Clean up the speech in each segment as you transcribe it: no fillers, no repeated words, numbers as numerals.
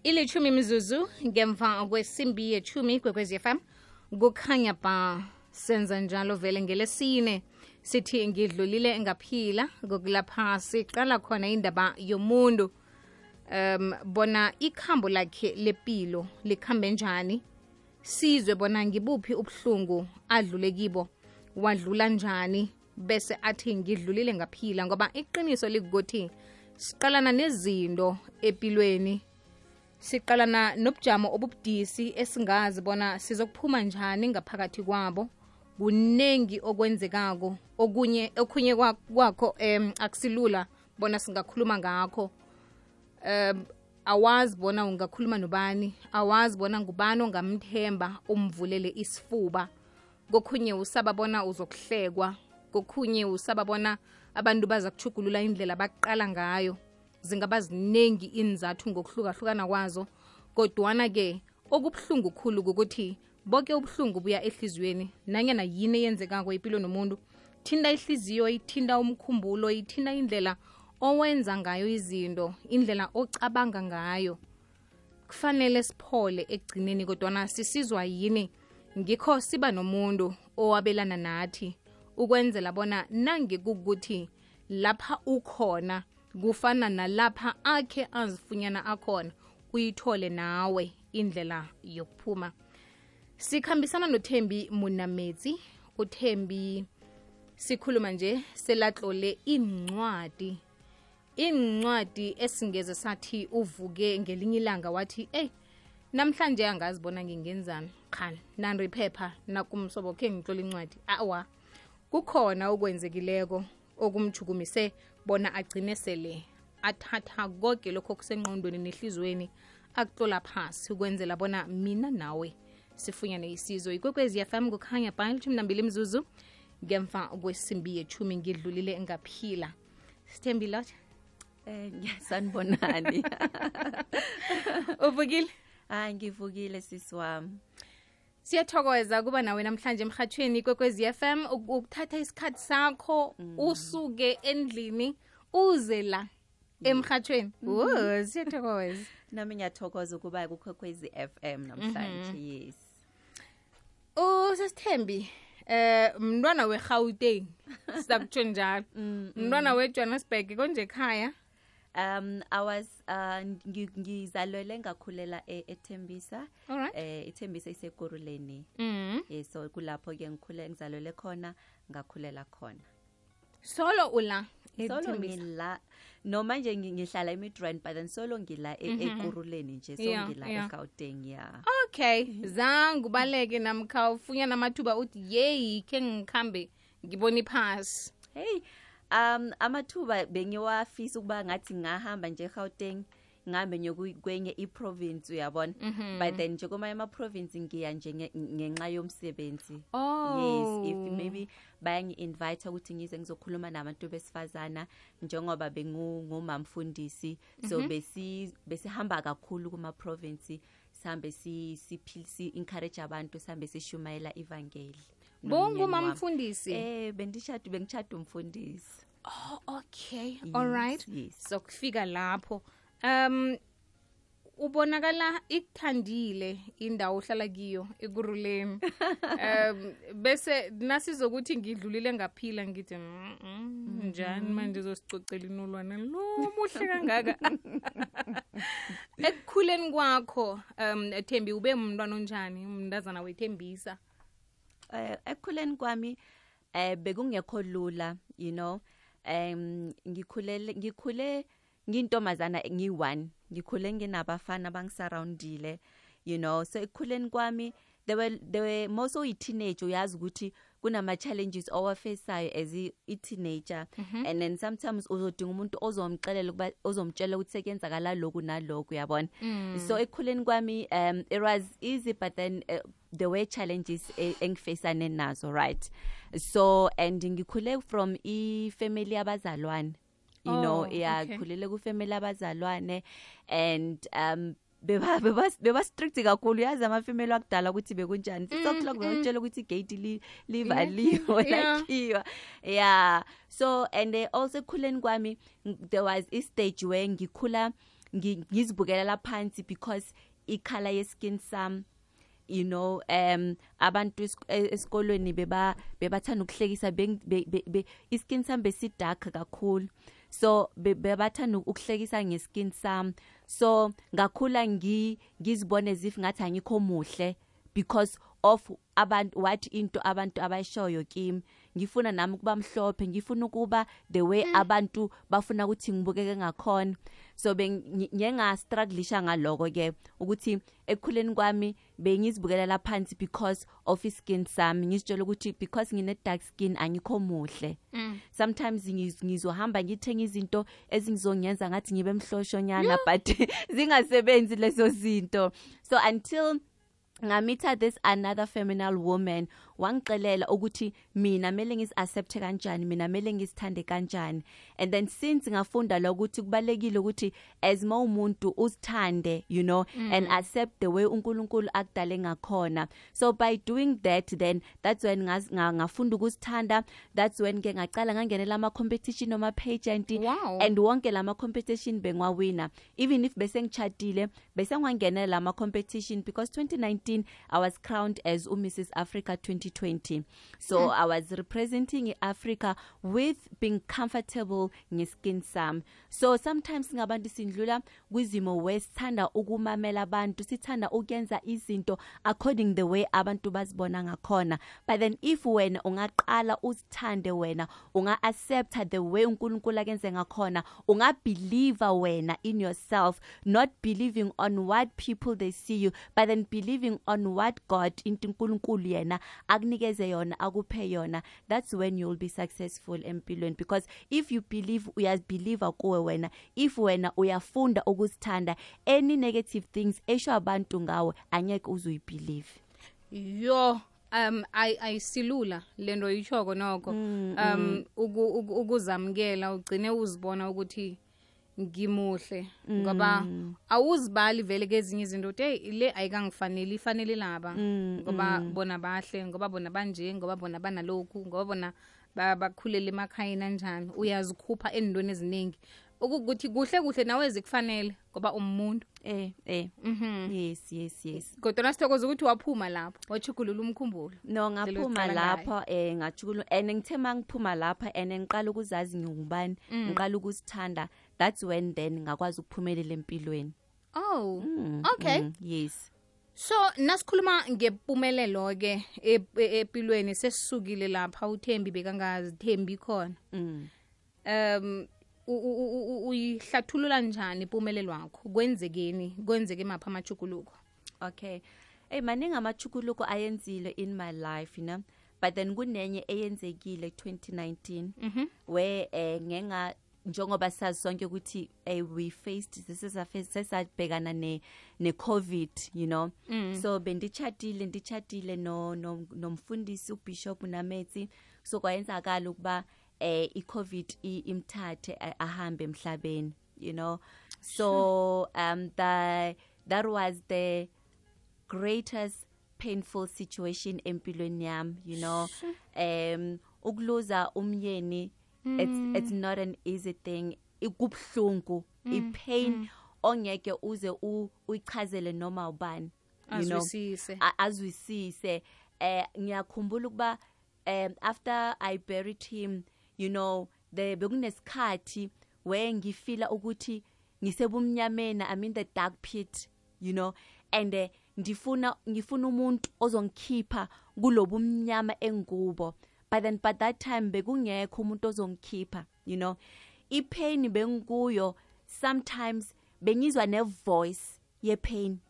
ilithumi mizuzu ngemva kwesimbi yethumi kwekwezi FM kukhanya ba senza njalo vele ngelesine sithi ngidlulile ngaphila kokulapha siqala khona indaba yomuntu bona ikhambo lakhe lepilo likhambe njani sizwe bona ngibuphi ubuhlungu adlule kibo wadlula njani bese athi ngidlulile ngaphila ngoba iqiniso likuthi siqalana nezinto empilweni siqalana nobujamo obubudisi esingazi bona sizokuphuma njani ngaphakathi kwabo kunengi okwenzekako okunye kwakho akusilula bona singakhuluma ngakho awazi bona ungakhuluma nobani awazi bona ngubani ongamthemba umvulele isifuba kokhunye usaba bona uzokuhlekwa kokhunye usaba bona abantu baza kuchugulula indlela baqala ngayo zingaba ziningi inzathu ngokuhlukahlukana kwazo kodwana ke okubuhlungu khulu ukuthi bonke ubuhlungu buya ehliziyweni nanyana yini eyenzekako impilo nomuntu thinda ihliziyo ithinda umkhumbulo ithinda indlela owenza ngayo izinto indlela ocabanga ngayo kufanele siphole ekugcineni kodwana sisizwa yini ngikho siba nomuntu owabelana nathi ukwenzela bona nangekukuthi lapha ukhona kufana nalapha akhe azifunyana akhona uyithole nawe indlela yokuphuma sikhambisana noThembi Munametsi uThembi sikhuluma nje selatlole incwadi esingeze sathi uvuke ngelinye ilanga wathi namhlanje angazibona ngingenzani khani nandi phepha nakumsobo khe ngitlola incwadi awa kukhona okwenzekileko okumjukumise bona agcine sele athatha konke lokho kusenqondweni nehlizweni akutlola phasi ukwenzela bona mina nawe sifunyane isizo ikwekwezi FM kukhanya ba 12 mizuzu ngemva kwesimbi yethumi ngidlulile ngaphila Sithembi lot sanibonani uvukile ngivukile sisi wami siyathokoza kuba nawe namhlanje emhathweni kwekwezi FM ukuthatha isikhathi sakho usuke endlini uze la emhathweni siyathokoza nami ngiyathokoza ukuba kukwekwezi FM namhlanje yes Sithembi mntwana weGauteng sizakutsho njalo mntwana weJohannesburg konje ekhaya I was ngizalwele ngakhulela eThembisa eThembisa iseGoruleni so kulapho ke ngikhule ngizalwele khona ngakhulela khona solo ula solo ngila no manje ngihlala eMidrand but then solo ngila eGoruleni nje so ngila eGauteng okay zangu baleke namkha ufunya namathuba uthi yey ke ngikhambe ngibona iphasi hey amathuba bengiwafisa ukuba ngathi ngahamba nje eGauteng ngihambe nyokwenye iprovince uyabona but then nje kuma ema-province ngiya nje ngenxa yomsebenzi yes if maybe bayangi invite ukuthi ngize ngizokhuluma nabantu besifazana njengoba bengumamfundisi so besihamba kakhulu kuma province sihambe si encourage abantu sihambe sishumayela evangeli bongumamfundisi bengichata umfundisi okay yes, all right yes. So kufika lapho ubonakala ikuthandile indawo ohlala kiyo eGoruleni bese nasizokuthi ngidlulile ngaphila ngithi njani manje uzosicocela inolwana lo muhle kangaka ekukhuleni kwakho Thembi ube umntwana onjani umntazana weThembisa ekukhuleni kwami bekungekho lula you know ngikhule ngintomazana ngi1 ngikhule nginabafana bangisurroundile you know so ekukhuleni kwami they were most of teenage uyazi ukuthi kunama challenges owafaceayo as a teenager and then sometimes uzodinga umuntu ozomxelela ukuba ozomtshela ukuthi sekenzakala lokhu nalokhu uyabona so ekukhuleni kwami it was easy but then there were challenges engifacane nazo right so and ngikhule from family abazalwane you know khulele ku family abazalwane and beba strict kakhulu yazi amafamily akudala ukuthi bekunjani 6:00 bayotshela ukuthi igate livaliwe lakhiwa yeah so and also khuleni kwami there was a stage where ngikhula ngizibukelela phansi because ikhala ye-skin sam, you know, abantu esikolweni bebathanda ukuhlekisa iskin sam besidark kakhulu, so bebathanda ukuhlekisa ngeskin sam, so ngakhula ngizibone as if ngathi angikho muhle because of what into abantu abayishoyo kimi. Ngifuna nami ukuba mhlophe, ngifuna ukuba the way abantu bafuna ukuthi ngibukeke ngakhona. So strugglisha ngaloko ke ukuthi ekukhuleni kwami bengizibukelela phansi because of skin sami, ngizitshela ukuthi because ngine dark skin angikho muhle. Sometimes ngizohamba ngithenga izinto ezingizongenza ngathi ngibe mhloshonyana but zingasebenzi lezo zinto. So until ngamitha this another feminine woman, wangixelela ukuthi mina mele ngisi-accepte kanjani, mina mele ngisithande kanjani. And then since ngafunda la ukuthi kubalekile ukuthi as umuntu uzithande, you know, and accept the way uNkulunkulu akudale ngakhona. So by doing that, then that's when ngafunda ukusithanda. That's when ke ngacala ngangenela ama competition noma pageant. Wow. And wonke lama competition bengwawina. Even if bese ngichatile bese ngwangenela ama competition because 2019 I was crowned as Mrs. Africa 2020. So I was representing Africa with being comfortable ngeskin sam. So sometimes ngabantu sindlula kwizimo wesithanda ukumamela abantu, sithanda ukuyenza izinto according the way abantu bazibona ngakhona. But then if wena ungaqala uzithande, wena unga-accepta the way uNkulunkulu akenze ngakhona, unga-believe wena in yourself, not believing on what people they see you, but then believing on what God into uNkulunkulu yena akunikeze yona, akuphe yona, that's when you'll be successful empilweni. Because if you believe, uyabelieve kuwe wena, if wena uyafunda ukuzithanda, any negative things esho abantu ngawe angeke uzuyibelieve. Yo ayisilula lento yichoko noko ukuzamkela ugcine uzibona ukuthi ngimuhle ngoba awuzibali vele kezinye izinto ukuthi le ayikangifanele, ifanele laba ngoba bona bahle, ngoba bona banje, ngoba bona banalokhu, ngoba bona bakhulela emakhayeni kanjani. Uyazikhupha endweni eziningi ukuthi kuhle nawe zikufanele ngoba umuntu yes kodwa sithokoza ukuthi waphuma lapho wachugulula umkhumbulo. No, ngaphuma lapho ngachugulula, and ngithe mangiphuma lapha and ngiqala ukuzazi ngingubani, ngiqala ukusithanda, that's when then ngakwazi ukuphumelela empilweni. Oh okay. Yes. So nasikhuluma ngempumelelo ke empilweni, sesisukile lapha uThembi bekangazithembi khona. Uyihlathulula njani impumelelo yakho? Kwenzeke mapha amachukuluko? Okay. Maningi amachukuluko ayenzile in my life, you know, but then kunenye eyenzekile 2019 where njengoba sazi sonke ukuthi we faced sesabhekana ne COVID, you know. So bendichatile nomfundisi uBishop Nametsi, so kwayenzakala ukuba i-COVID imthathe ahambe emhlabeni, you know. So that was the greatest painful situation empilweni yami, you know. Ukuluza umyeni, it's not an easy thing. Ikubhlungu, ipain ongeke uze uyichazele noma ubani, you know, azwisise. Ngiyakhumbula ukuba after I buried him, you know, bekunesikhathi where ngifila ukuthi ngisebumnyameni, I'm in the dark pit, you know, and ngifuna umuntu ozongikhipha kulobumnyama engubo. But then by that time bekungekho umuntu ozongikhipha, you know. Ipain bengikuyo, sometimes bengizwa ne voice ye pain,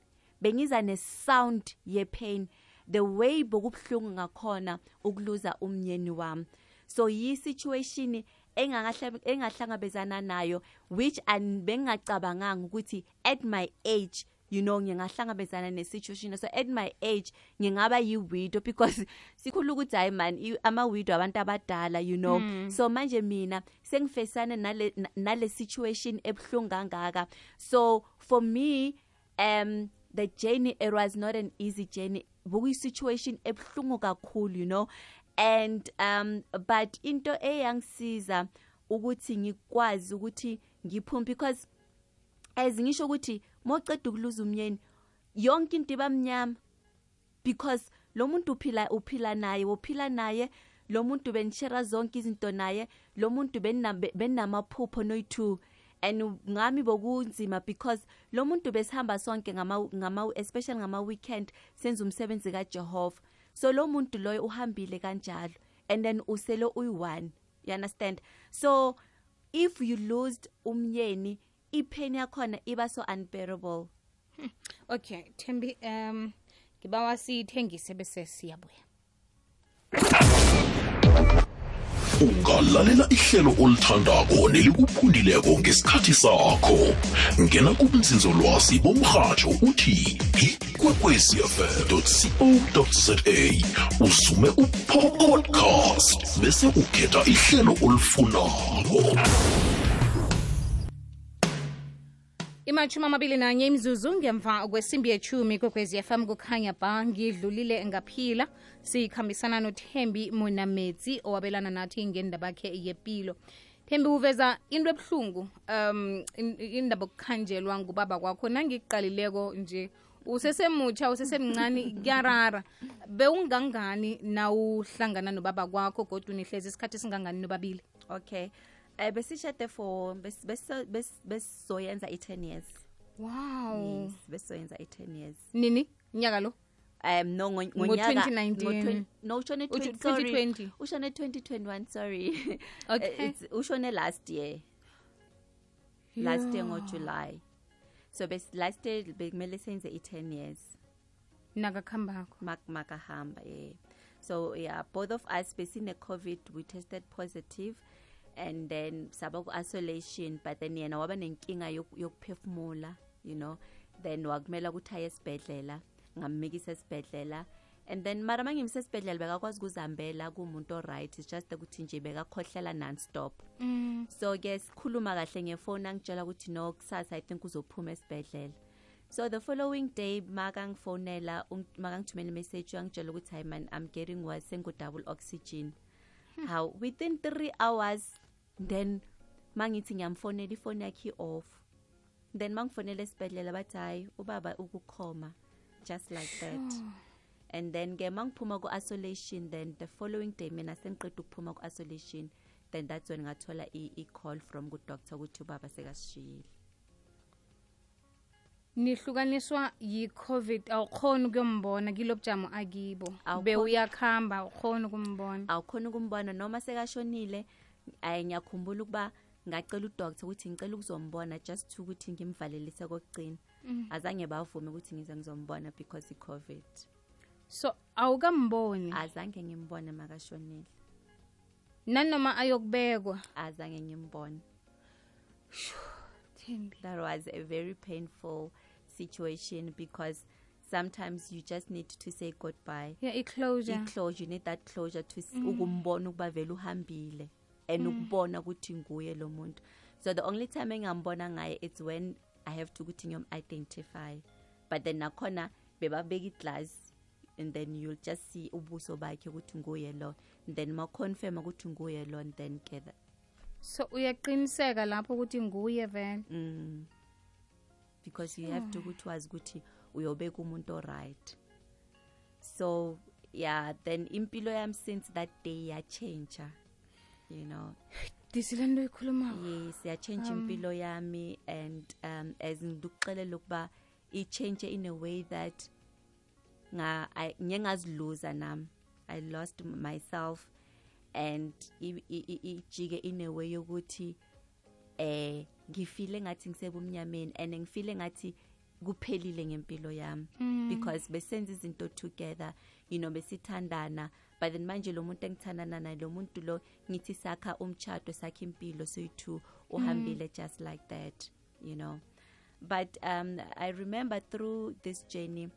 bengizwa ne sound ye pain, the way bokubhlungu ngakhona ukuluza umnyeni wami. So yi situation engahlangabezana nayo, which bengacabanganga ukuthi at my age, you know, ngingahlangabezana ne situation. So at my age ngingaba yi-widow because sikhulu ukuthi hayi man ama-widow abantu abadala, you know. So manje mina sengifesana nale situation ebhlungu kangaka. So for me the journey, it was not an easy journey. Buku situation ebhlungu kakhulu, you know. And but into eyangisiza ukuthi ngikwazi ukuthi ngiphume, because as ngisho ukuthi moqeda ukuluza umyeni yonke into ibamnyama because lo muntu uphila naye lo muntu benishare zonke izinto naye lo muntu benamaphupho noyi2 and ngami bokunzima because lo muntu besihamba sonke especially ngama weekend senza umsebenzi kaJehova so lo muntu loyo uhambile kanjalo and then usele uyi1 you understand so if you lost umyeni ipain yakhona iba so unbearable. Okay Thembi ngibawa sithengise bese siyabuya. Ungalalela ihlelo olithandako nelikuphundileko ngesikhathi sakho. Ngena kubunzinzolwazi bomrhatsho uthi ikwekwecfm.co.za usume upodcast bese ukhetha ihlelo olifunako. Imachumi 21 imizuzu ngemva kwesimbi yechumi kwekwezi FM kukhanya ba ngidlulile ngaphila sikhambisana noThembi Monametsi owabelana nathi ngendaba yakhe yepilo. Thembi uveza into ebhlungu indaba okukhanjelwa ngubaba kwakho nangiqalileko nje usesemutsha usesemncane kuyarara bewungangani nawuhlangana nobaba kwakho kodwa unihlezi isikhathi singangani nobabili. Okay besishade for besoyenza 10 years. Wow. Yes, besoyenza 10 years. Nini nyaka lo? No ngonyaka 2019 no ushone 2020 ushone 2021 sorry. Okay. Ushone last year. Yeah. Last year ngo July. So last year bekumele senze 10 years. Nakakhambako. Makahamba yeah. So yeah, both of us besine COVID we tested positive. And then saba ku isolation but then yena waba nenkinga yokuphefumula you know then wakumela ukuthi aye esibhedlela ngamikisa esibhedlela and then mara mangimse esibhedlela bekakwazi ukuzambela kumuntu alright it's just ukuthi nje bekakhohlela non-stop so ke sikhuluma kahle ngefoni angitshela ukuthi no kusasa I think uzophuma esibhedlela so the following day makangifonela makangithumela message angitshela ukuthi hi man I'm getting worse sengu double oxygen how within 3 hours then mangithi ngiyamfonela ifoni yakhe off then mangifonela esibhedlela bathi hayi ubaba ukukhoma just like that and then ke mangiphuma ku isolation then the following day mina sengiqeda ukuphuma ku isolation then that's when ngathola I call from good doctor ukuthi ubaba sekasishiyile. Nihlukaniswa yi-COVID awukhona ukuyombona kilobujamo akibo bewuyakhamba awukhona ukumbona noma sekashonile ngiyakhumbula ukuba ngacela udoctor ukuthi ngicela ukuzombona just to ukuthi ngimvalelise kokugcina azange bavume ukuthi ngize ngizombona because iCovid so awukamboni azange ngimbone makashonile nanoma ayokubekwa azange ngimbone. That was a very painful situation because sometimes you just need to say goodbye. Yeah, closure. You need that closure to ukumbona ukuba vele uhambile and ukubona ukuthi nguye lo muntu. So the only time engambona ngaye it's when I have to ukuthi ngiyom-identify. But then nakhona bebabeka iglass and then you'll just see ubuso bakhe ukuthi nguye lo and then ma-confirm ukuthi nguye lo and then gather. So uyaqiniseka lapho ukuthi nguye vele because you have to ukuthi wazi ukuthi uyobeka umuntu alright. So yeah, then impilo yami since that day ya change, you know. Disilendo ikhuluma. Yes, ya change impilo yami and as ngiduxelela ukuba I change in a way that ngingaziluza nami. I lost myself and ijike in a way yokuthi ngifile ngathi ngisebumnyameni and ngifile ngathi kuphelile ngempilo yami because besenza izinto together you know besithandana but then manje lo muntu engithandana naye lo muntu lo ngithi sakha umchato sakhe impilo soyi2 uhambile just like that you know but I remember through this journey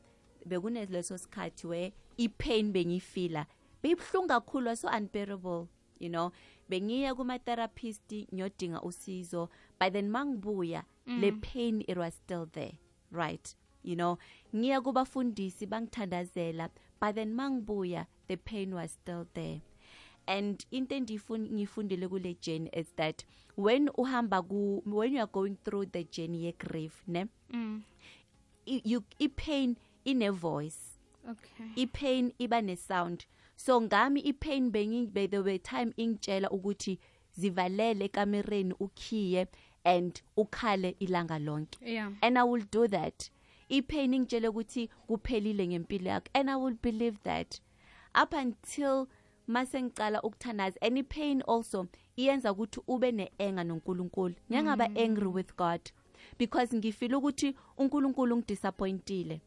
bekunezo sikhathi where ipain bengifila beyibhlungu kakhulu so unbearable you know bengiya kuma therapist ngiyodinga usizo but then mangibuya le pain it was still there right you know ngiya kubafundisi bangithandazela but then mangibuya the pain was still there And into ngifundile kule journey is that when you are going through the journey ye grief, ne, i-pain in a voice. Okay. I-pain iba ne sound. So ngami i-pain by the way time ingitshela ukuthi zivalele ekamereni ukhiye and ukhale ilanga lonke. Yeah. And I will do that. I-pain ingitshela ukuthi kuphelile ngempilo yakho, and I will believe that up until masengicala ukuthanaza. And i-pain also iyenza ukuthi ube ne-anger noNkulunkulu. Ngiyangaba angry with God because ngifila ukuthi uNkulunkulu ngidisappointile.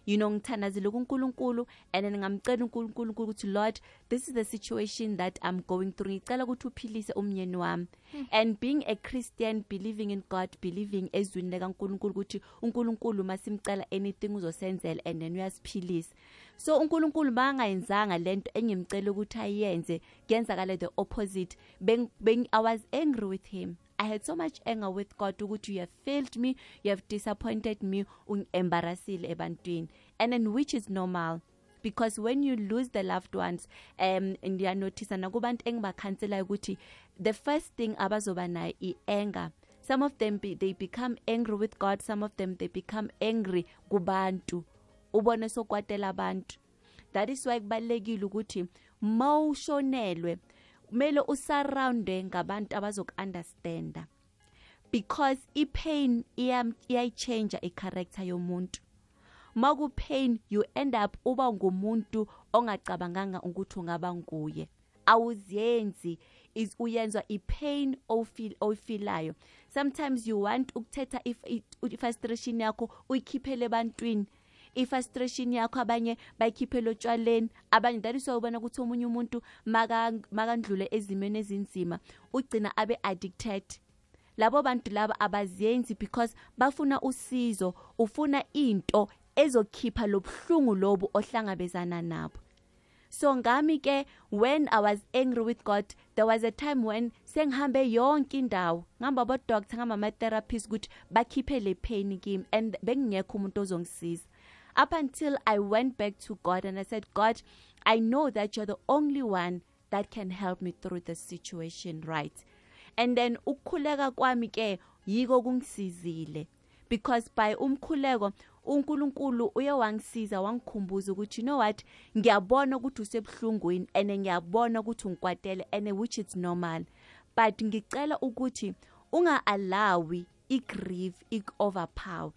You know, ngithanazile kuNkulunkulu, and then ngamcela uNkulunkulu ukuthi Lord, this is the situation that I'm going through. Ngicela ukuthi uphilise umnyeni wami. And being a Christian, believing in God, believing ezwini likaNkulunkulu ukuthi uNkulunkulu masimcela anything uzosenzela and then uyasiphilisa. So uNkulunkulu bangayenzanga lento engimcela ukuthi ayenze, kuyenzakala the opposite. I was angry with him. I had so much anger with God ukuthi you have failed me, you have disappointed me, embarrassile ebantwini. And then which is normal. Because when you lose the loved ones, and you notice nakubantu engibakhansela ukuthi the first thing abazoba nayo i-anger. Some of them they become angry with God, some of them they become angry kubantu. Ubone sokwatela abantu. That is why kubalekile ukuthi mawushonelwe kumele usurroundwe ngabantu abazok-understanda, because i-pain iyayichange i-character yomuntu. Maku-pain you end up uba ngumuntu ongacabanganga ukuthi ungaba nguye. Awuziyenzi uyenzwa i-pain oyifilayo. Sometimes you want ukuthetha i-frustration yakho uyikhiphele ebantwini. I-frustration yakho abanye bayikhiphela otshwaleni, abanye that is why ubona ukuthi omunye umuntu makandlule ezimeni ezinzima ugcina abe addicted. Labo bantu laba abaziyenzi because bafuna usizo, ufuna into ezokhipha lobuhlungu lobu ohlangabezana nabo. So ngami ke when I was angry with God, there was a time when sengihambe yonke indawo ngihamba bo doctor ngama therapist ukuthi bakhiphe le pain kimi, and bengingekho umuntu ozongisiza. Up until I went back to God and I said, God, I know that you're the only one that can help me through the situation, right? And then ukukhuleka kwami ke yiko kungisizile, because by umkhuleko uNkulunkulu uye wangisiza wangikhumbuza ukuthi you know what, ngiyabona ukuthi usebuhlungwini and ngiyabona ukuthi ungikwatele, and which is normal, but ngicela ukuthi unga-allawi i-grief ik-overpower.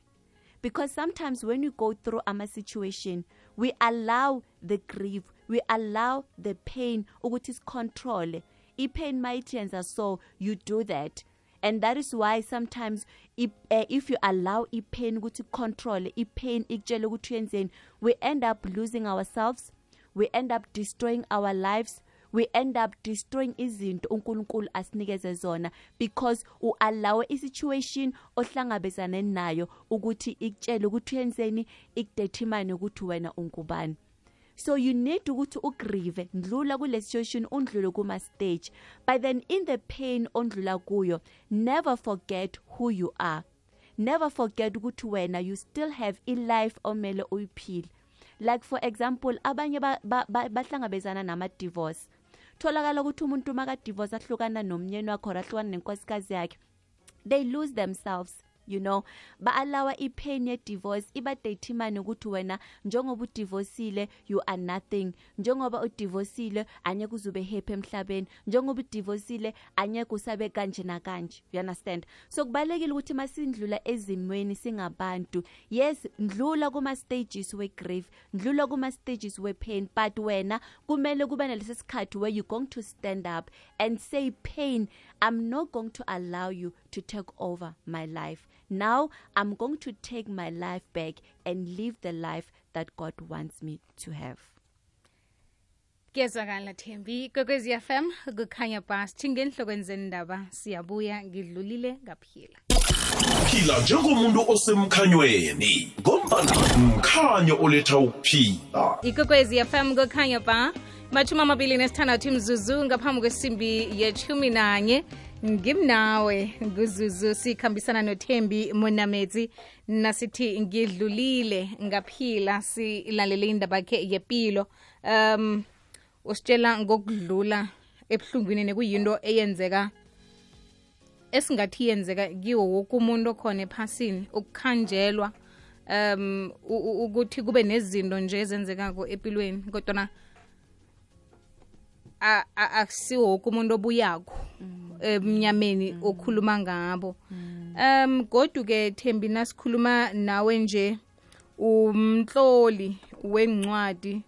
Because sometimes when you go through a situation, we allow the grief, we allow the pain ukuthi control. I-pain maitenza, so you do that. And that is why sometimes if you allow i-pain ukuthi control, i-pain ikutshela ukuthi yenzeni, we end up losing ourselves, we end up destroying our lives, we end up destroying izinto uNkulunkulu asinikeze zona, because uallow isituation ohlangabezana nayo ukuthi ikutshele ukuthi yenzeni, ikudetermine ukuthi wena ungubani. So you need ukuthi ugrieve, ndlula kule situation undlule kuma stage, but then in the pain ondlula kuyo, never forget who you are. Never forget ukuthi wena you still have a life omele uyiphile. Like for example, abanye bahlangabezana nama divorce. Tholakala ukuthi umuntu maka divorce ahlukana nomnyeni wakhe ahlukana nenkosikazi yakhe, they lose themselves. You know, ba-allow i-pain ye-divorce iba determine ukuthi wena njengoba udivorceile you are nothing, njengoba udivorceile anyeke uzube happy emhlabeni, njengoba udivorceile anyeke usabe kanje na kanje. You understand? So kubalekile ukuthi masindlula ezimweni singabantu, yes, ndlula kuma stages we grief, ndlula kuma stages we pain, but wena kumele kube nalesi sikhathi where you going to stand up and say, pain, I'm not going to allow you to take over my life. Now I'm going to take my life back and live the life that God wants me to have. Kezwakala Thembi, Kokwezi FM, kukhanya bas, chingenhlokweni zendaba, siyabuya ngidlulile ngaphila. Phila njengomuntu osemkhanyweni, ngombana mkhanyo oletha ukuphila. Ikokwezi FM kukhanya ba, machuma mabili nesithandathu mzuzu ngaphambi kwesimbi ye-11. Ngimnawe nguzuzu sikhambisana noThembi Monamedzi nasithi ngidlulile ngaphila, silalele indaba yakhe yempilo. Usitshela ngokudlula ebuhlungwini nekuyinto eyenzeka esingathi yenzeka kiwo woke umuntu okhona ephasini, ukukhanjelwa ukuthi kube nezinto nje ezenzekako empilweni, kodwa akusiwo woke umuntu obuyako emnyameni okhuluma ngabo. Godu-ke Thembi, nasikhuluma nawe nje umtloli wencwadi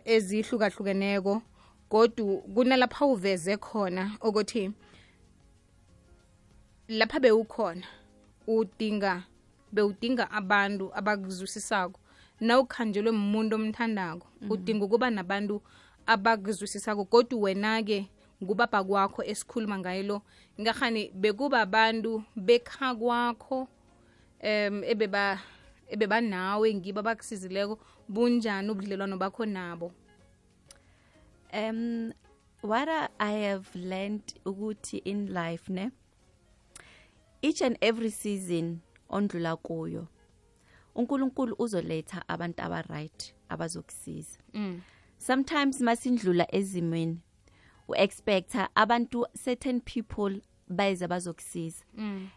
ezihlukahlukeneko, godu kunalapha uveze khona ukuthi lapha bewukhona bewudinga abantu abakuzwisisako. Nawukhanjelwe umuntu omthandako udinga ukuba nabantu abakuzwisisako, godu wena-ke ngubaba kwakho esikhuluma ngayo lo, ngahani bekuba abantu bekha kwakho ebeba nawe ngibo abakusizileko. Bunjani ubudlelwano bakho nabo? What I have learned ukuthi in life, ne, each and every season ondlula kuyo uNkulunkulu uzoletha abantu aba-right abazokusiza. Sometimes masindlula ezimweni u-expecta abantu, certain people bayeza bazokusiza,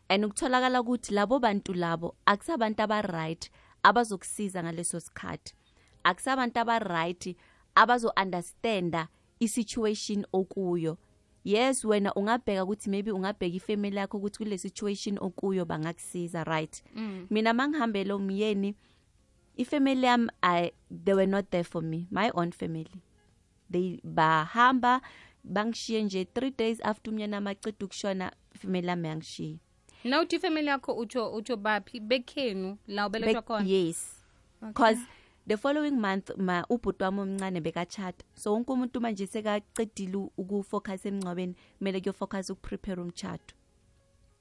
and ukutholakala ukuthi labo bantu labo akusabantu aba-right abazokusiza ngaleso sikhathi, akusabantu aba-right abazo-understanda i-situation okuyo. Yes, wena ungabheka ukuthi maybe ungabheka ifamily yakho ukuthi kule situation okuyo bangakusiza, right? Mina mangihambela umyeni, ifamily yami they were not there for me, my own family. They bahamba bangishiye nje 3 days after umyeni amaceda ukushona, ifamily yami yangishiya. Now uthi ifamily yakho utsho baphi? Bekhenu la ubelethwa khona? Yes. Because the following month ubhuti wami omncane bekachata, so wonke umuntu manje sekaqedile ukufocus emncwabeni, kumele kuyofocus ukuprepare umchato,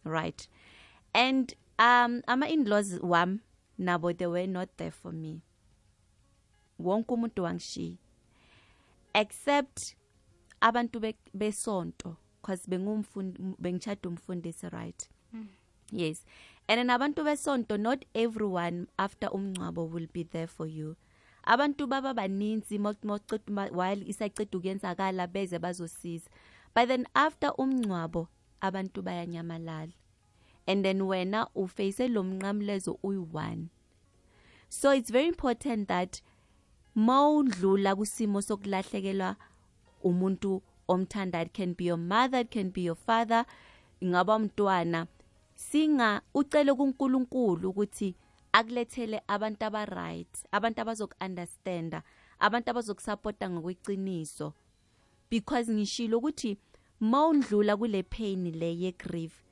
right? And ama-in-laws wami nabo, they were not there for me. Wonke umuntu wangishiya except abantu besonto, because bengichada umfundisi, right? Yes. And then abantu besonto, not everyone after umncwabo will be there for you. Abantu baba baninzi while isaqeda ukuyenzakala beze bazosiza, but then after umncwabo abantu bayanyamalala, and then wena uface lo mnqamlezo uyi-one. So it's very important that mawudlula kusimo sokulahlekelwa umuntu omthanda, it can be your mother, it can be your father, ingaba umntwana, singa ucele kuNkulunkulu ukuthi akulethele abantu aba-right, abantu abazoku-understanda, abantu abazokusupporta ngokweqiniso. Because ngishilo ukuthi mawundlula kule pain le ye-grief,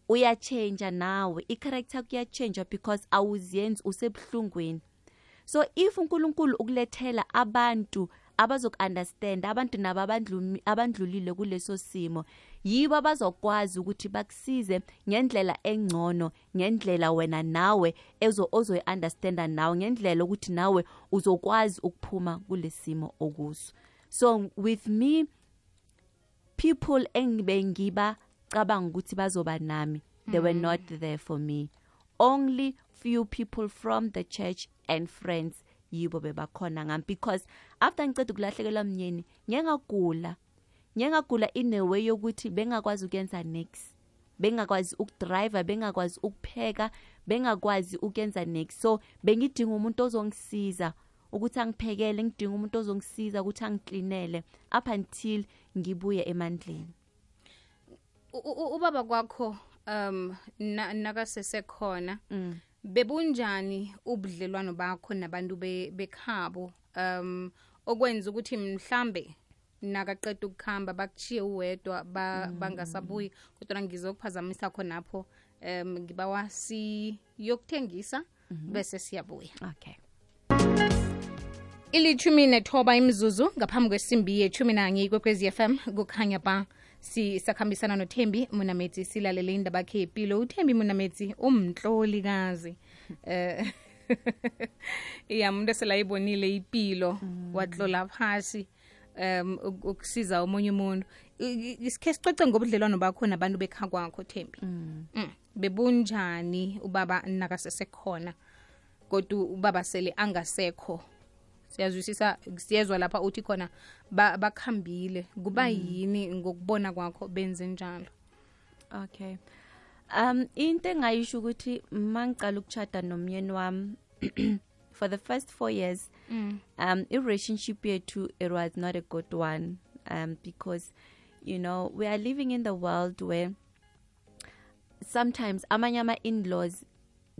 uyachange nawe, i-character kuyachange because awuziyenzi usebuhlungweni. So if uNkulunkulu ukulethela abantu abazoku-understand, abantu nabo abandlulile kuleso simo, yibo abazokwazi ukuthi bakusize ngendlela engcono, ngendlela wena nawe ozoyi-understanda nawe, ngendlela ukuthi nawe uzokwazi ukuphuma kulesimo okuso. So with me, people engibengiba cabanga ukuthi bazoba nami, they were not there for me. Only few people from the church and friends yibo bebakhona ngami, because after ngiceda ukulahlekelwa mnyeni ngiyengagula in a way yokuthi bengakwazi ukuyenza next, bengakwazi ukudrive, bengakwazi ukupheka, bengakwazi ukuyenza next. So bengidinga umuntu ozongisiza ukuthi angiphekele, ngidinga umuntu ozongisiza ukuthi angiklinele up until ngibuye emandleni. Ubaba kwakho nakasesekhona, bebunjani ubudlelwano bakho nabantu bekhabo, okwenza ukuthi mhlambe nakaqeda ukukhamba bakuchiye uwedwa bangasabuyi, kodwa ngizokuphazamisa khonapho, ngibawa siyokuthengisa bese siyabuya. Okay. 19 imizuzu ngaphambi kwesimbi ye-11 kwekwezi FM kukhanya ba sisakhambisana noThembi Munametsi, silalele indaba yakhe yempilo. uThembi Munametsi umtlolikazi umuntu eselayibonile impilo, watlola phasi ukusiza omunye umuntu. Isikhe sicoce ngobudlelwano bakho nabantu bekha kwakho Thembi. Bebunjani ubaba nakasesekhona kodwa ubaba sele angasekho? siyazwisisa siyezwa lapha uthi khona bakhambile kuba yini ngokubona kwakho benze njalo? Okay. Into engayisho ukuthi mangicala ukuchata nomyeni wami for the first 4 years i-relationship yethu it was not a good one because you know we are living in the world where sometimes amanye ama-in-laws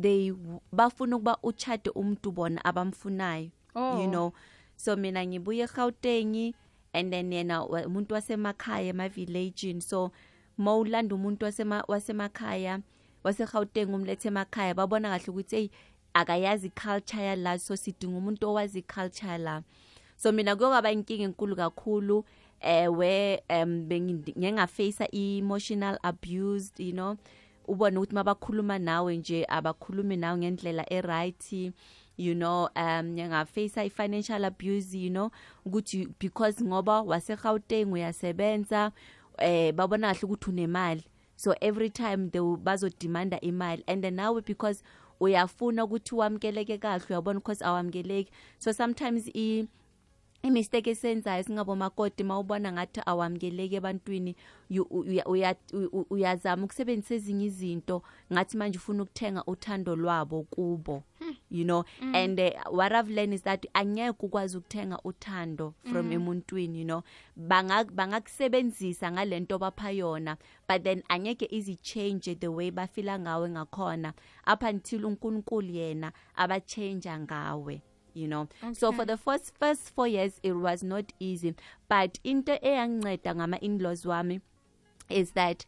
they bafuna ukuba uchate umuntu bona abamfunayo. You know, so mina ngibuye eGauteng and then yena umuntu wasemakhaya ema-village, so mawulanda umuntu wasemakhaya waseGauteng umlethe emakhaya babona kahle ukuthi hey akayazi culture yala, so sidinga umuntu owazi culture la. So mina kuyaba inkinga enkulu kakhulu where bengingaface emotional abused, you know, ubona ukuthi mabakhuluma nawe nje abakhulumi nawe ngendlela eright, you know, ngingaface financial abuse, you know, ukuthi because ngoba waseGauteng uyasebenza babona kahle ukuthi unemali, so every time they bazodemanda imali, and then now because uyafuna ukuthi wamkeleke kahle uyabona because awamkeleki, so sometimes imistake esenzayo singabo makoti mawubona ngathi awamkeleke ebantwini uyazama ukusebenzisa ezinye izinto ngathi manje ufuna ukuthenga uthando lwabo kubo, you know. And what I've learned is that angeke ukwazi ukuthenga uthando from emuntwini, you know, bangakusebenzisa ngalento bapha yona, but then angeke easy change the way bafila ngawe ngakhona up until uNkulunkulu yena abachange ngawe, you know. Okay. So for the first 4 years it was not easy, but into eyanginceda ngama in-laws wami is that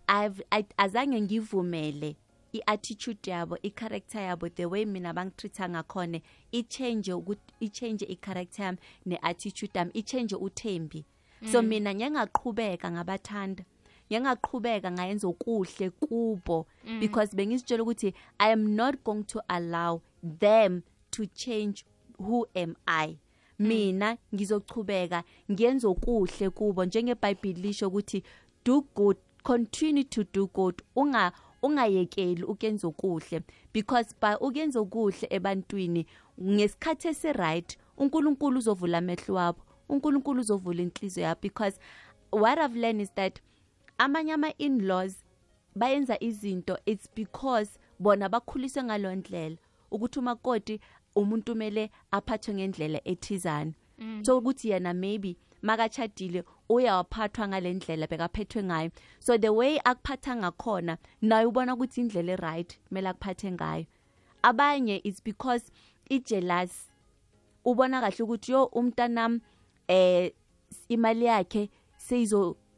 azange ngivumele i-attitude yabo, i-character yabo, the way mina bangitreata ngakhona i-change i-character yami ne-attitude yami, i-change uthembi. So mina ngiyangaqhubeka ngabathanda, ngiyangaqhubeka ngayenza okuhle kubo because bengizitshela ukuthi I am not going to allow them to change who am I. Mina ngizochubeka ngiyenza okuhle kubo, njengeBhayibheli lisho ukuthi do good, continue to do good, ungayekeli ukuyenza okuhle, because by ukuyenza okuhle ebantwini ngesikhathi esi-right uNkulunkulu uzovula amehlo wabo, uNkulunkulu uzovula inhliziyo yabo. Because what I've learned is that amanye ama-in-laws bayenza izinto it's because bona bakhuliswe ngalondlela ukuthi umakoti umuntu mele aphathwe ngendlela ethizana, so ukuthi yena maybe makachadile uyawaphathwa ngalendlela bekaphethwe ngayo, so the way akuphatha ngakhona naye ubona ukuthi indlela eright mele akuphathe ngayo. Abanye it's because i-jealous, ubona kahle ukuthi yo umntanami imali yakhe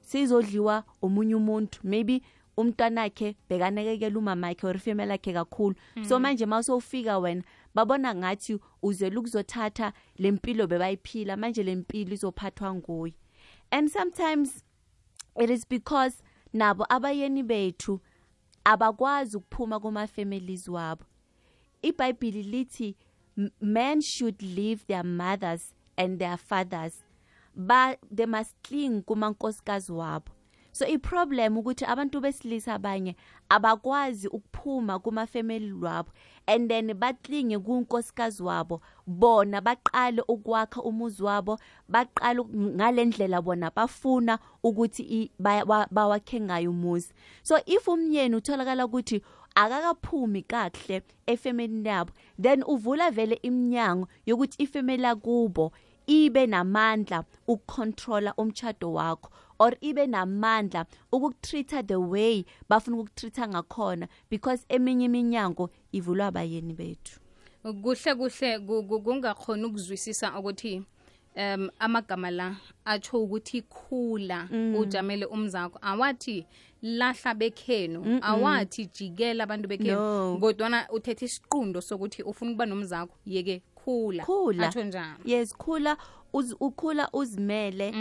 seyizodliwa omunye umuntu, maybe umntanakhe bekanekekela umama yakhe or female yakhe kakhulu, so manje mawusofika wena babona ngathi uzela ukuzothatha lempilo bebayiphila, manje lempilo izophathwa nguye. And sometimes it is because nabo abayeni bethu abakwazi ukuphuma kuma families wabo. iBhayibheli lithi men should leave their mothers and their fathers, but they must cling kumankosikazi wabo. So i-problem ukuthi abantu besilisa abanye abakwazi ukuphuma kuma family wabo and then batlinge kunkosikazi wabo, bona baqale ukwakha umuzi wabo, baqale ngalendlela bona bafuna ukuthi bawakhe ngayo umuzi. So if umyeni utholakala ukuthi akakaphumi kahle efamily yabo, then uvula vele iminyango yokuthi ifamily yakubo ibe namandla ukucontrola umtchado wakho, or ibe namandla ukukutreata the way bafuna ukukutreata ngakhona, because eminye iminyango ivulwa abayeni bethu. Kuhle kungakhona ukuzwisisa ukuthi amagama la atsho ukuthi khula ujamele umzakho, awathi lahla bekhenu, awathi jikela abantu bekhenu, kodwana uthethe isiqundo sokuthi ufuna ukuba nomzakho yeke khula atsho njalo. Yes, khula ukhula uzimele,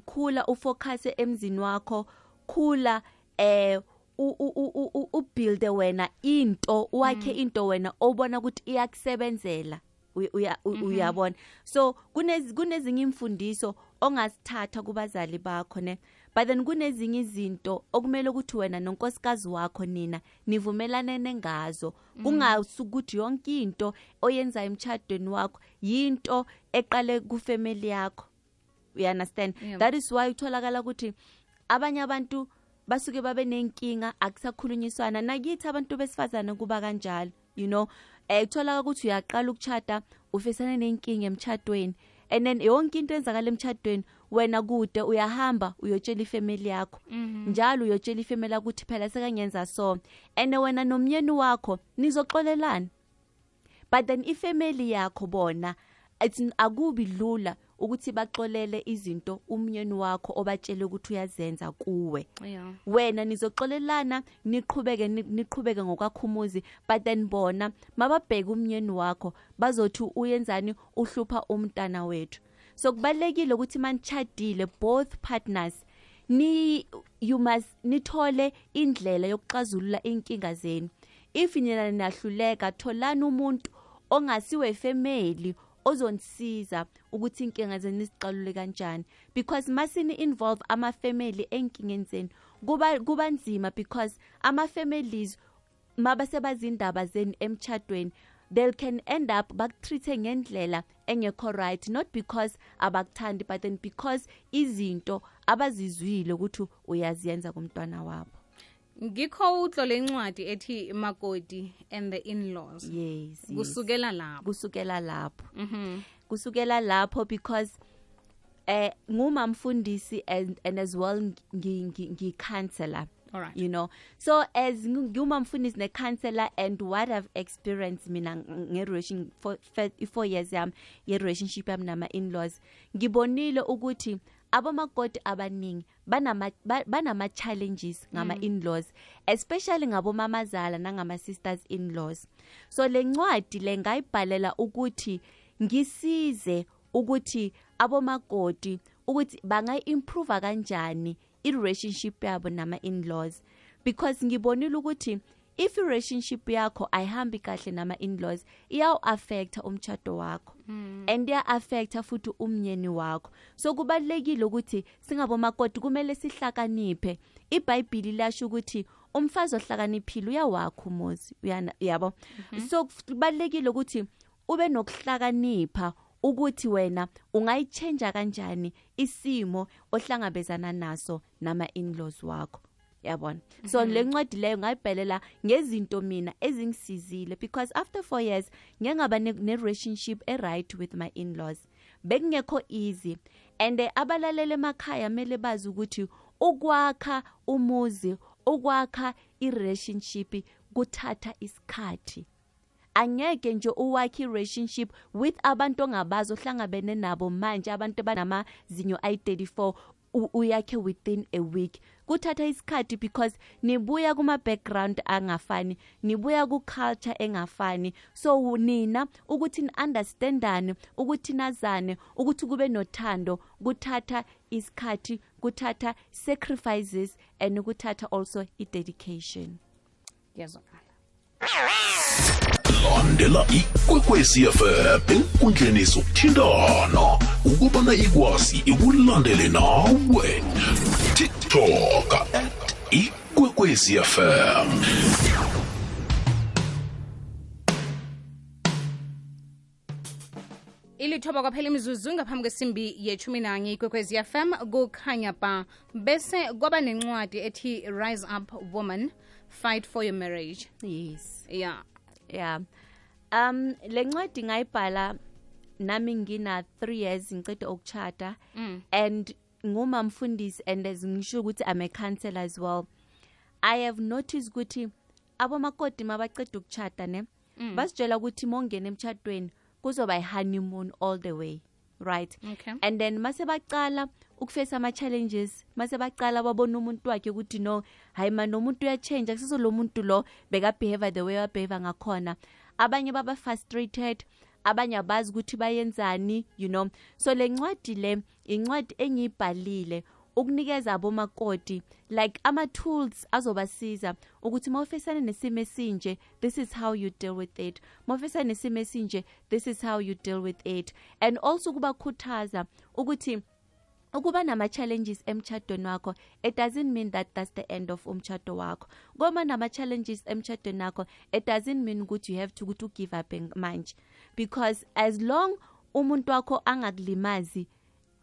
khula ufocus emzini wakho, khula ubuild wena into, wakhe into wena obona ukuthi iyakusebenzela, uyabona. So kunezinye imfundiso ongasithatha kubazali bakho ne, but then kunezinye izinto okumele ukuthi wena nonkosikazi wakho nina nivumelanene ngazo kungasukuthi yonke into oyenza emtchadweni wakho yinto eqale kufamily yakho. You understand? That is why utholakala ukuthi abanye abantu basuke babe nenkinga akusakhulunyiswana nakithi abantu besifazana kuba kanjalo, you know. Utholakala ukuthi uyaqala ukuchata ufesana nenkinga emtchadweni, and then yonke into enzakala emtchadweni wena kude uyahamba uyotshela ifamily yakho njalo uyotshela ifamily ukuthi phela sekanyenza so, and wena nomyeni wakho nizoxolelana, but then ifamily yakho bona akubi lula ukuthi baxolele izinto umyeni wakho obatshele ukuthi uyazenza kuwe. Wena nizoxolelana niqhubeke ngokwakhumuzi, but then bona mababheka umyeni wakho bazothi uyenzani uhlupha umntana wethu. So kubalekile ukuthi manchadile both partners you must nithole indlela yokuxazulula inkinga zenu. If nina nahluleka tholani umuntu ongasiwe family ozonisiza ukuthi inkinga zenu isiqalule kanjani, because masini involve ama family enkingeni zenu kuba nzima, because ama families mabasebazindaba zenu emtchadweni they can end up bakutreat ngendlela engekho right, not because abakuthandi but then because izinto abazizwile ukuthi uyaziyenza kumntwana wabo. Ngikho utlole incwadi ethi Makoti and the in-laws. Yes. Kusukela lapho. Kusukela lapho because ngumamfundisi and as well ngi-counselor. All right. You know, so as ngumamfundisi ne-counselor and what I've experienced mina nge-relation for 4 years ye-relationship yami nama in-laws, ngibonile ukuthi abomakoti abaningi banama challenges ngama in-laws, especially ngabomamazala nangama sisters in-laws. So le ncwadi le ngayibhalela ukuthi ngisize ukuthi abomakoti ukuthi bangayi-improve kanjani i-relationship yabo nama in-laws, because ngibonile ukuthi if relationship yakho ayihambi kahle nama in-laws iyaw-affecta umtchado wakho and iya-affecta futhi umnyeni wakho. So kubalekile ukuthi singabomakoti kumele sihlakaniphe. iBhayibheli lasho ukuthi umfazi ohlakaniphile uyawakha umuzi, yabo. So kubalekile ukuthi ube nokuhlakanipha ukuthi wena ungayichange kanjani isimo ohlangabezana naso nama in-laws wakho, yabona. So le ncwadi leyo ngayibhelela ngezinto mina ezingisizile, because after 4 years ngengaba ne-relationship right with my in-laws, bekungekho easy, and abalalele emakhaya mele bazi ukuthi ukwakha umuzi, ukwakha i-relationship kuthatha isikhathi. Angeke nje uwakhe relationship with abantu ongabazi ohlangabene nabo manje, abantu banamazinyo ayi-34 uyakhe within a week. Kuthatha isikhathi because nibuya kuma background angafani, nibuya ku culture engafani. So nina ukuthi ni-understandane, ukuthi nazane, ukuthi kube nothando, kuthatha isikhathi, kuthatha sacrifices, and kuthatha also i-dedication. Yazokala. Landela ikwekwezi FM enkundleni zokuthindana ukubana ikwazi ikulandele nawe. TikTok @ikwekwezi FM. Ilithoba kwaphela imizuzu ngaphambi kwesimbi ye-11 ikwekwezi FM kukhanya ba, bese kwaba nencwadi ethi Rise Up Woman, Fight for Your Marriage. Yes. Yeah. Le ncwadi ngayibhala nami ngina 3 years ngicede ukuchata, and ngumamfundisi, and as ngisho ukuthi I'm a counselor as well. I have noticed ukuthi abomakoti mabaceda ukuchata ne basitshela ukuthi mongena emchadweni kuzoba i-honeymoon all the way, right? Okay. And then mase baqala ukufesa ama challenges, mase baqala babona umuntu wakhe ukuthi no, hayi man, nomuntu uyachange, akusizo lo muntu lo beka behave the way wabehave ngakhona. Abanye baba frustrated, abanye abazi ukuthi bayenzani, you know. So le ncwadi le incwadi engiyibhalile ukunikeza abomakoti like ama tools azobasiza ukuthi mawufesana nesimo esinje, this is how you deal with it. Mawufesana nesimo esinje, this is how you deal with it. And also kubakhuthaza ukuthi ukuba nama-challenges emtshadweni wakho, it doesn't mean that that's the end of umtshado wakho. Ngoba nama-challenges emtshadweni wakho, it doesn't mean ukuthi you have to give up manje. Because as long umuntu wakho angakulimazi,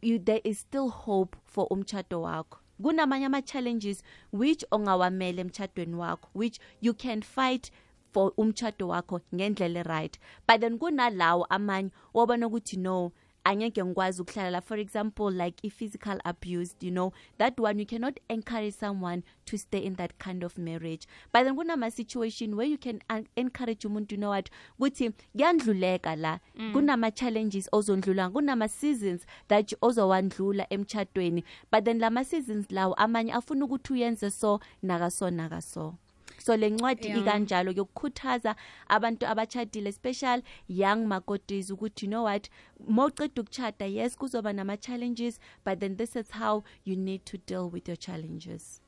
there is still hope for umtshado wakho. Kunamanye ama-challenges which ongawamele emtshadweni wakho, which you can fight for umtshado wakho ngendlela right. But then kunalawo amanye wabona ukuthi no, angeke ngikwazi ukuhlala. For example, like physical abuse, that one you cannot encourage someone to stay in that kind of marriage. But then kunama situation where you can encourage umuntu, what, ukuthi kuyandluleka la, kunama challenges ozondlula, kunama seasons that ozowandlula emtshadweni. But then lama seasons lawo amanye afuna ukuthi uyenze so nakaso. So le ncwadi ikanjalo yokukhuthaza abantu abachadile, special young makotis, ukuthi what, mawuqeda ukuchada, yes kuzoba nama challenges, but then this is how you need to deal with your challenges.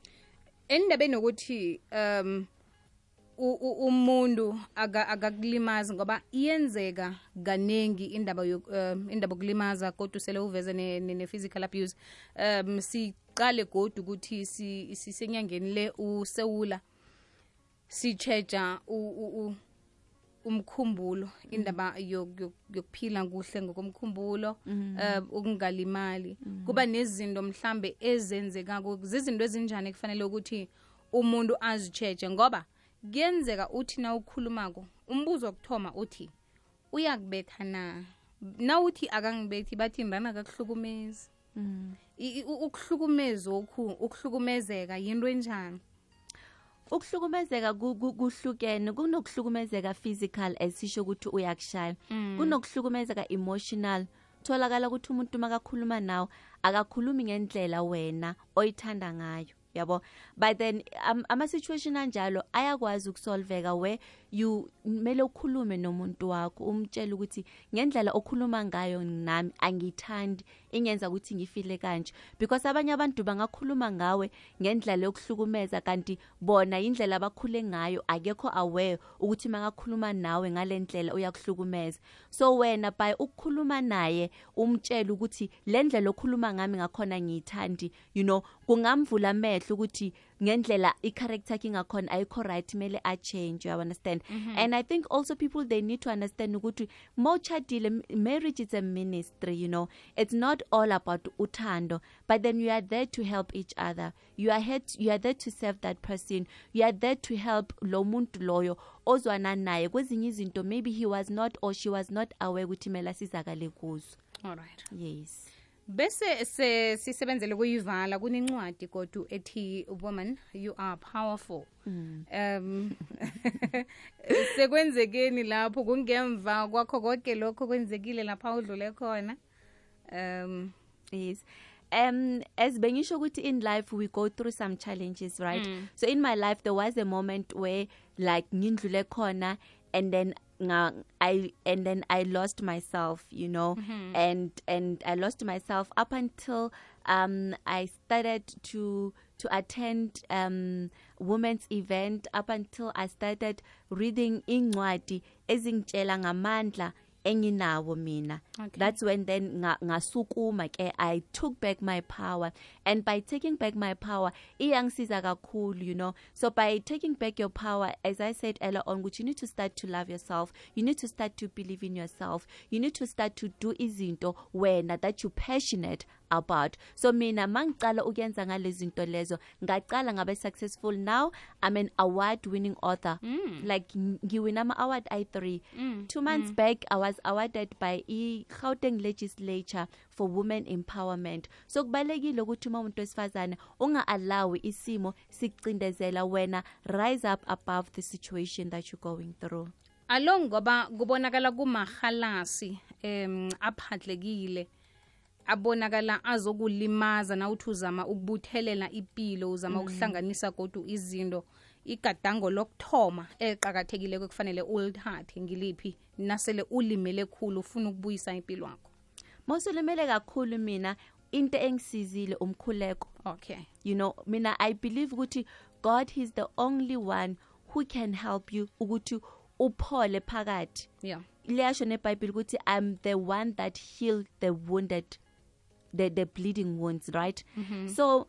Endabeni ukuthi umuntu akakulimaza ngoba iyenzeka kanengi indaba yokulimaza, kodwa usele uveze ne physical abuse. Siqale godwa ukuthi sisenyangeni le usewula sicheja umkhumbulo, indaba yokuphila kuhle ngokomkhumbulo, ukungalimali. Kuba nezinto mhlambe ezenzeka, izinto ezinjani kufanele ukuthi umuntu azicheje, ngoba kuyenzeka uthi na ukhulumako umbuzo wokuthoma uthi uyakubetha na uthi akangibethi bathi ndana akakuhlukumezi. Ukuhlukumezeka yinto enjani? Ukuhlukumezeka kuhlukene, kunokuhlukumezeka physical esisho ukuthi uyakushaya, kunokuhlukumezeka emotional. Tholakala ukuthi umuntu makakhuluma nawe akakhulumi ngendlela wena oyithanda ngayo, yabo. But then ama situation anjalo ayakwazi ukusolveka where you mele ukhulume nomuntu wakho umtshela ukuthi ngendlela okhuluma ngayo nami angithandi, ingenza ukuthi ngifile kanje. Because abanye abantu bangakhuluma ngawe ngendlela yokuhlukumeza kanti bona indlela abakhule ngayo akekho aware ukuthi makakhuluma nawe ngalendlela uyakuhlukumeza. So wena by ukukhuluma naye umtshela ukuthi lendlela okhuluma ngami ngakhona ngiyithandi, kungamvula amehlo ukuthi ngendlela i-character yakhe ngakhona ayikho right, mele a change, you understand. And I think also people, they need to understand ukuthi mawuchadile, marriage is a ministry, it's not all about uthando, but then you are there to help each other. You are there to serve that person. You are there to help lo muntu loyo ozwana naye kwezinye izinto maybe he was not or she was not aware ukuthi mela sizakale kuzo. All right. Yes. Bese sisebenzele kuyivala kunencwadi kodwa ethi woman you are powerful. Sekwenzekeni lapho kungemva kwakho konke lokho kwenzekile lapha udlule khona? Yes. As bengisho ukuthi in life we go through some challenges, right? So in my life there was a moment where like ngindlule khona, and then I lost myself, and I lost myself up until I started to attend women's event, up until I started reading incwadi ezingitshela ngamandla enginawo mina. Okay. That's when then ngasukuma ke I took back my power, and by taking back my power iyangisiza kakhulu, so by taking back your power, as I said earlier on, which you need to start to love yourself, you need to start to believe in yourself, you need to start to do izinto wena that you passionate about. So mina mangicala ukuyenza ngalezinto lezo ngaqala ngabe successful. Now I'm an award winning author. Like ngiwina ama award I3. 2 months back I was awarded by Gauteng legislature for women empowerment. So kubalekile ukuthi umuntu wesifazane unga-allow isimo sikucindezela wena, rise up above the situation that you're going through. Along ngoba kubonakala kumahalasi aphatlekile, abonakala azokulimaza na uthi uzama ukubuthelela ipilo, uzama ukuhlanganisa kodwa izinto. Igadango lokthoma eqhakathekile kufanele ulithathe ngiliphi nasele ulimele khulu ufuna ukubuyisa impilo yakho? Mosulimele kakhulu mina into engisizile umkhuleko. Okay. Mina I believe ukuthi God, he's the only one who can help you ukuthi uphole phakathi. Yeah. Liyasho neBhayibheli ukuthi I'm the one that healed the wounded the bleeding wounds, right? So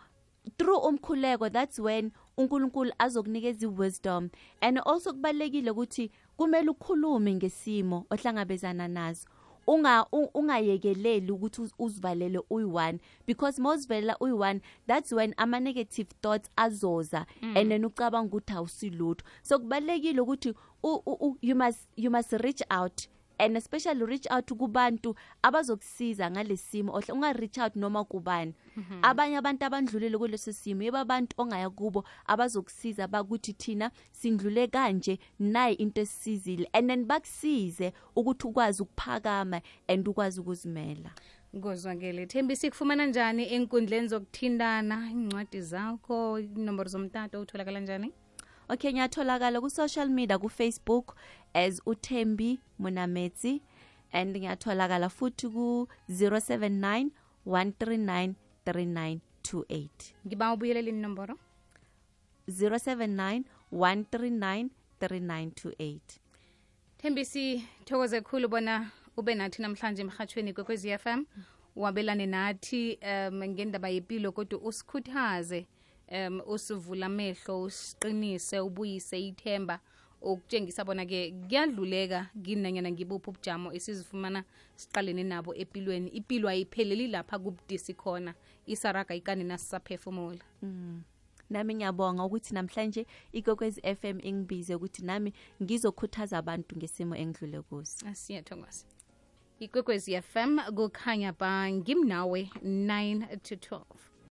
through umkhuleko, that's when uNkulunkulu azokunikeza wisdom. And also kubalekile ukuthi kumele ukhulume ngesimo ohlangabezana nazo. Ungayekeleli ukuthi uzivalele uyi-1, because mawuzivalela uyi-1, that's when ama negative thoughts azoza and then ucabanga ukuthi awusilutho. So kubalekile ukuthi you must reach out, and especially reach out kubantu abazokusiza ngalesimo. Unga reach out noma kubani. Abanye abantu abandlulile kuleso simo, yeba abantu ongaya kubo abazokusiza bakuthi thina sindlule kanje, nayi into esizile, and then bakusize ukuthi ukwazi ukuphakama and ukwazi ukuzimela. Ngozwakele. Thembi, sikufumana njani enkundleni zokuthindana, incwadi zakho, inombolo zomtato utholakala njani? Okay, ngiyatholakala ku social media, ku Facebook as uThembi Munametsi, and ngiyatholakala futhi ku 079 139 3928. Ngiba ubuyelela inombolo 079 139 3928. Thembi, sithokoze kakhulu bona ube nathi namhlanje emhathweni kwekwezi FM, wabelane nathi ngendaba yempilo, kodwa usikhuthaze, usivula amehlo, usiqinise, ubuyise ithemba, ukutshengisa bona ke kuyadluleka kinanyana ngibuphi ubujamo esizifumana siqalene nabo empilweni. Impilo ayipheleli lapha kubudisi khona, isaraga ikani nasisaphefumula. Nami ngiyabonga ukuthi namhlanje ikwekwezi FM ingibize ukuthi nami ngizokhuthaza abantu ngesimo engidlule kuso. Siyathokoza. Ikwekwezi FM kukhanya ba ngimnawe 9 to 12.